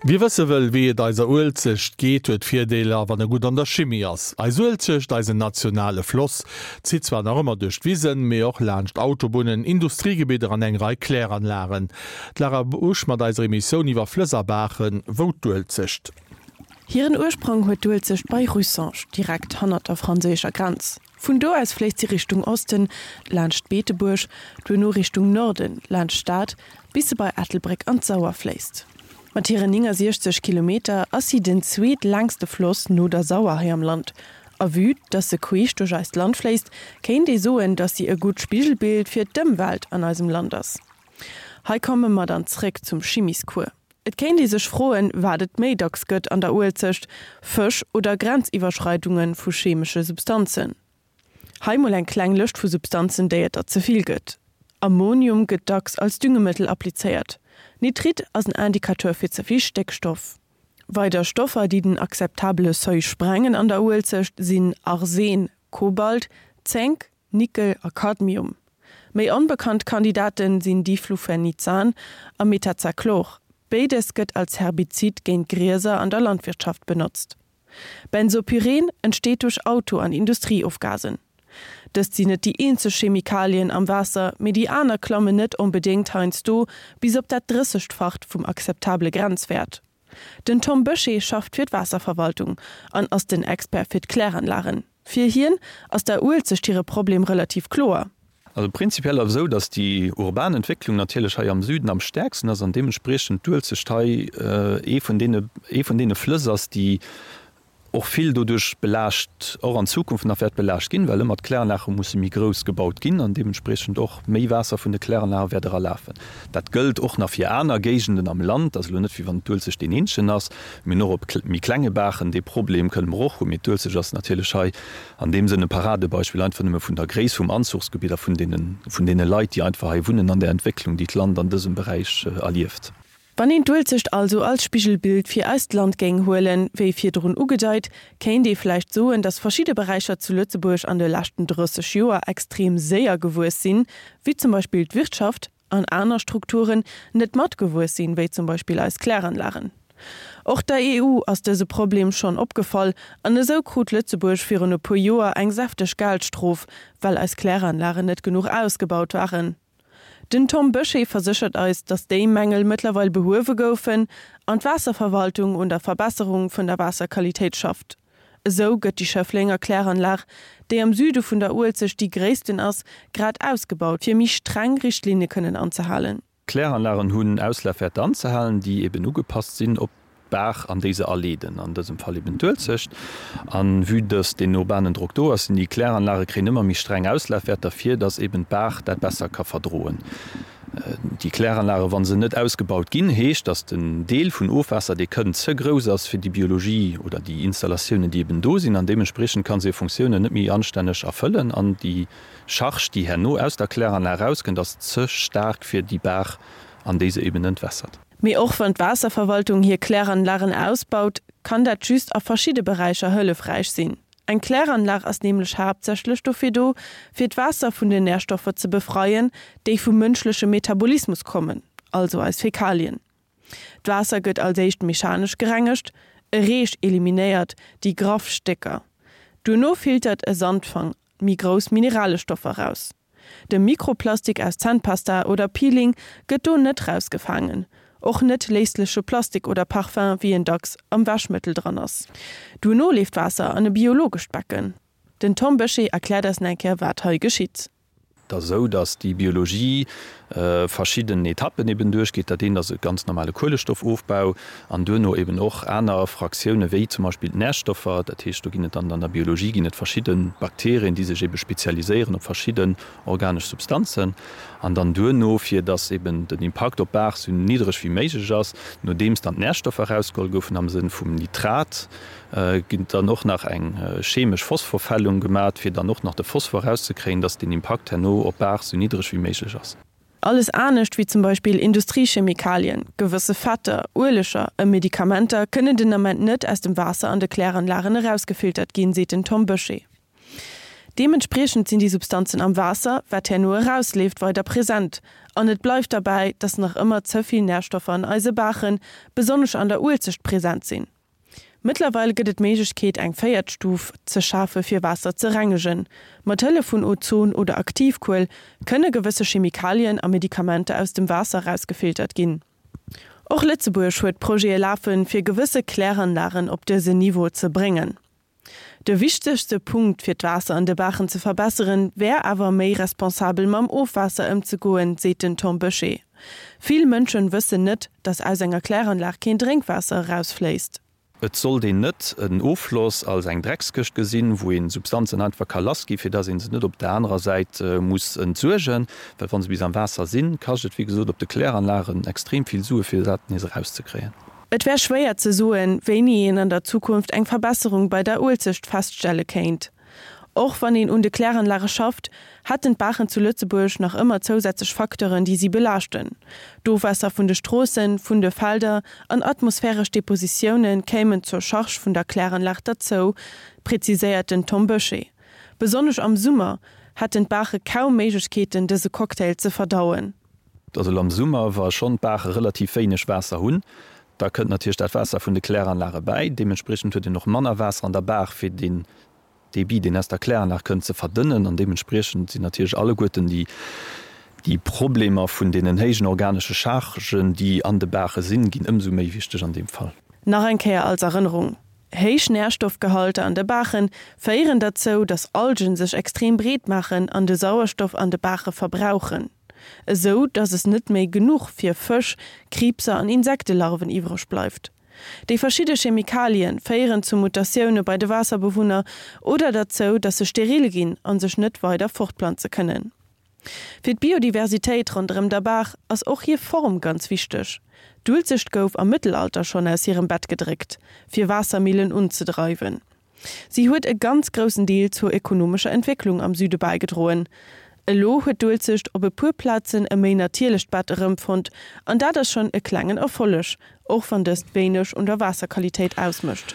Wie wësse wëll, wéi et eiser Uelzecht geet, huet Virdeeler, wann e gutt an der Chimie ass. Eis Uelzecht, eisen nationale Floss, zitt zwar nach ëmmer duerch d'Wisen, mee och laanscht Autobunnen, Industriegebidder an eng Rei Kläranlagen. D'Lara Busch mat eiser Emissioun iwwer Flëss a Baachen, Wou d'Uelzecht? Hiren Ursprong huet d'Uelzecht bei Russange, direkt hannert der franséischer Grenz. Vun do aus fléisst si Richtung Osten, laanscht Beetebuerg, duerno Richtung Norden, laanscht Stad, bis se bei Ettelbréck an d'Sauer fléisst. Mat hiren 69 Kilometer ass si den zweetlängste Floss no der Sauer hei am Land. A vue dass se queesch duerch eist Land fléisst, kéint ee soen, dass si e gutt Spigelbild fir d'Ëmwelt an eisem Land ass. Hei komme mer dann zréck zum Chimiscours. Et kéint ee sech froen, wat et méi dacks gëtt an der Uelzecht, Fësch oder Grenziwwerschreidunge vu chemesche Substanzen. Hei mol eng kleng Lëscht vu Substanzen, déi et der ze vill gëtt. Ammonium gëtt dacks als Düngemëttel applizéiert. Nitrit ass en Indicateur fir ze vill Stéckstoff. Weider Stoffer, déi den akzeptabele Seuil sprengen an der Uelzecht, sinn Arsen, Kobalt, Zénk, Nickel a Cadmium. Méi onbekannt Kandidaten sinn Diflufenizan a Metazachlor. Béides gëtt als Herbizid géint Grieser an der Landwirtschaft benotzt. Benzopyren entsteet duerch Auto an Industrieofgasen. Dëst sinn net déi eenzeg Chemikalien am Waasser, mee déi aner klammen net onbedéngt heiansdo bis op dat Drëssegfacht vum akzeptabele Grenzwäert. Den Tom Bösché schafft fir d'Waasserverwaltung an ass den Expert fir d'Kläranlagen. Fir hien ass der Uelzecht hire Problem relativ kloer. Also prinzipiell ass et esou, datt déi urban Entwécklung natierlech hei am Süden am stäerksten ass an deementspriechend d'Uelzecht hei ee vun deene, ee vun deene Flëss ass, déi och vill doduerch belaascht, och an Zukunft nach wäert belaascht ginn, well ëmmer d'Kläranlage musse méi grouss gebaut ginn an deementspriechend och méi Waasser vun de Kläranlage wäert eralafen. Dat gëllt och nach fir aner Géigenden am Land. Dat ass elo net, wéi wann d'Uelzecht deen eenzegen ass. Mir hunn och op méi klenge Baachen dee Problem, kënne mer och hunn. Mee d'Uelzecht ass natierlech hei an deem Sënn e Paradebeispill, einfach nëmme vun der Gréisst vum Anzuchsgebitt a vun deene, vun deene Leit, déi einfach hei wunnen an der Entwécklung, déi d'Land an dësem Beräich erlieft. Wann een d'Uelzecht also als Spigelbild fir eist Land géing huelen, wéi virdrun ugedeit, kéint ee vläicht soen, datt verschidde Beräicher zu Lëtzebuerg an de leschten 30 Joer extrem séier gewuess sinn, wéi zum Beispill d'Wirtschaft, an aner Strukturen net matgewuess sinn, wéi zum Beispill eis Kläranlagen. Och der EU ass dëse Problem schonn opgefall an esou krut Lëtzebuerg virun e puer Joer eng säfteg Geldstrof, well eis Kläranlagen net genuch ausgebaut waren. Den Tom Bösché verséchert eis, datt déi Mängel mëttlerweil behuewe goufen an d'Waasserverwaltung un der Verbesserung vun der Waasserqualitéit schafft. Esou gëtt déi Schëfflenger Kläranlag, déi am Süde vun der Uelzecht déi gréissten ass, grad ausgebaut, fir méi streng Richtlinne kënnen anzehalen. D'Kläranlagen hunn Auslafwäerter anzehalen, déi eben ugepasst sinn op d'Baach an déi se aleeden, an dësem Fall eben d'Uelzecht. A vue dass deen urbanen Drock do ass, sinn déi Kläranlage kréien ëmmer méi streng Auslafwäerter, fir dass eben d'Baach dat besser ka verdroen. Déi Kläranlage, wa se net ausgebaut ginn, heescht, dass den Deel vun Ofwaasser, dee kënnt, ze grouss ass fir déi Biologie oder déi Installatiounen, déi eben do sinn, an deementspriechend ka se hir Funktiounen net méi anstänneg erfëllen an déi Charge, déi herno aus der Kläranlag erauskënnt, ass ze staark fir déi Baach, an déi se eben entwässert. Mee och wann d'Waasserverwaltung hir Kläranlagen ausbaut, kann dat just a verschidde Beräicher hëllefräich sinn. Eng Kläranlag ass nämlech haaptsächlech dofir do, fir d'Waasser vun den Närstoffer ze befreien, déi vum mënschleche Metabolismus kommen, also eis Fäkalien. D'Waasser gëtt als éischt mechanesch gerengegt, e Reech eliminéiert déi graff Stécker. Duerno filtert e Sandfang méi grouss Mineralestoffer raus. De Mikroplastik aus Zännpasta oder Peeling gëtt do net rausgefaangen, och net léisleche Plastik oder Parfum, wéi en dacks am Wäschmëttel dran ass. Duerno leeft d'Waasser an e biologescht Becken. Den Tom Bösché erkläert eis nach eng Kéier wat hei geschitt. Et ass esou, datt déi Biologie verschidden Etappen eben duerchgeet. Dat eent ass e ganz normale Kuelestoffofbau an duerno eben och aner Fraktioune wéi zum Beispill d'Närstoffer. Dat heescht, do ginn et dann an der Biologie ginn et verschidde Bakterien, déi sech ebe spezialiséieren op verschidden organesch Substanzen. An dann duerno, fir datt eben den Impakt op d'Baach sou niddreg wéi méiglech ass, nodeems dann d'Närstoffer erausgeholl goufen am Sënn vum Nitrat, ginn dann och nach eng chemesch Phosphorfällung gemat, fir dann och nach de Phosphor erauszekréien, datt den Impakt herno op d'Baach sou niddreg wéi méiglech ass. Alles anescht, wéi zum Beispill Industriechemikalien, gewësse Fetter, Ueleger e Medikamenter kënnen den Ament net aus dem Waasser an de Kläranlagen erausgefiltert ginn, seet den Tom Bösché. Deementspriechend sinn déi Substanzen am Waasser, wat herno erausleeft, weider present. An et bleift derbäi, dass nach ëmmer ze vill Närstoffer an eise Baachen, besonnesch an der Uelzecht, present sinn. Mëttlerweil gëtt et d'Méiglechkeet eng véiert Stuf ze schafe fir Waasser ze rengegen. Mat Hëllef vun Ozon oder Aktivkuel kënne gewësse Chemikalien a Medikamenter aus dem Waasser erausgefiltert ginn. Och Lëtzebuerg huet Projete lafen, fir gewësse Kläranlagen op dësen Niveau ze bréngen. De wichtegste Punkt fir d'Waasser an de Baachen ze verbesseren, wär awer méi responsabel mam Ofwaasser ëmzegoen, seet den Tom Böché. Vill Mënschen wëssen net, datt aus enger Kläranlag keen Drénkwaasser erausfléisst. Et sollt een net en Offloss als eng Dreckskëscht gesinn, wou een Substanzen einfach ka lassgi fir dass een se net op der anerer Säit muss entsuergen, well wa se bis am Waasser sinn, kascht et wéi gesot op de Kläranlagen extrem vill Sue fir dat nees erauszekréien. Et wär schwéier ze soen, wéini een an der Zukunft eng Verbesserung bei der Uelzecht feststelle kéint. Och wann een un de Kläranlage schafft, hätten d'Baachen zu Lëtzebuerg nach ëmmer zousätzlech Facteuren, déi si belaaschten. D'Ofwaasser vun de Stroossen, vun de Felder an atmosphäresch Depositioune kéimen zur Charge vun der Kläranlag derzou, preziséiert den Tom Böché. Besonnesch am Summer hätten d'Baache kaum Méiglechkeeten, dëse Cocktail ze verdauen. Also elo am Summer, wa schonn d'Baache relativ wéineg Waasser hunn, da kënnt natierlech dat Waasser vun de Kläranlage bäi. Deementspriechend huet een och manner Waasser an der Baach, fir deen Débit, deen aus der Kläranlag kënnt, ze verdënnen. An deementspriechend sinn natierlech alleguerten déi, déi Problemer vun deenen héijen organesche Chargen, déi an de Baache sinn, ginn ëmsou méi wichteg an deem Fall. Nach eng Kéier als Erënnerung, Héich Närstoffgehalter an de Baache féieren derzou, datt Algen sech extrem breet maachen an de Sauerstoff an de Baache verbrauchen, esou datt es net méi genuch fir Fësch, Kriibser an Insektelarven iwwreg bleift. Déi verschidde Chemikalien féieren zu Mutatioune bei de Waasserbewunner oder derzou, datt se steril ginn a sech net weider fortplanze kënnen. Fir d'Biodiversitéit ronderëm der Baach ass och hir Form ganz wichteg. D'Uelzecht gouf am Mëttelalter schonn aus hirem Bett gedréckt, fir Waassermillen unzedreiwen. Si huet e ganz groussen Deel zur ekonomescher Entwécklung am Süde bäigedroen. Elo huet d'Uelzecht op e puer Plazen e méi natierlecht Bett erëmfonnt an dat ass schonn e klengen Erfolleg, och wann dëst wéineg un der Waasserqualitéit ausmécht.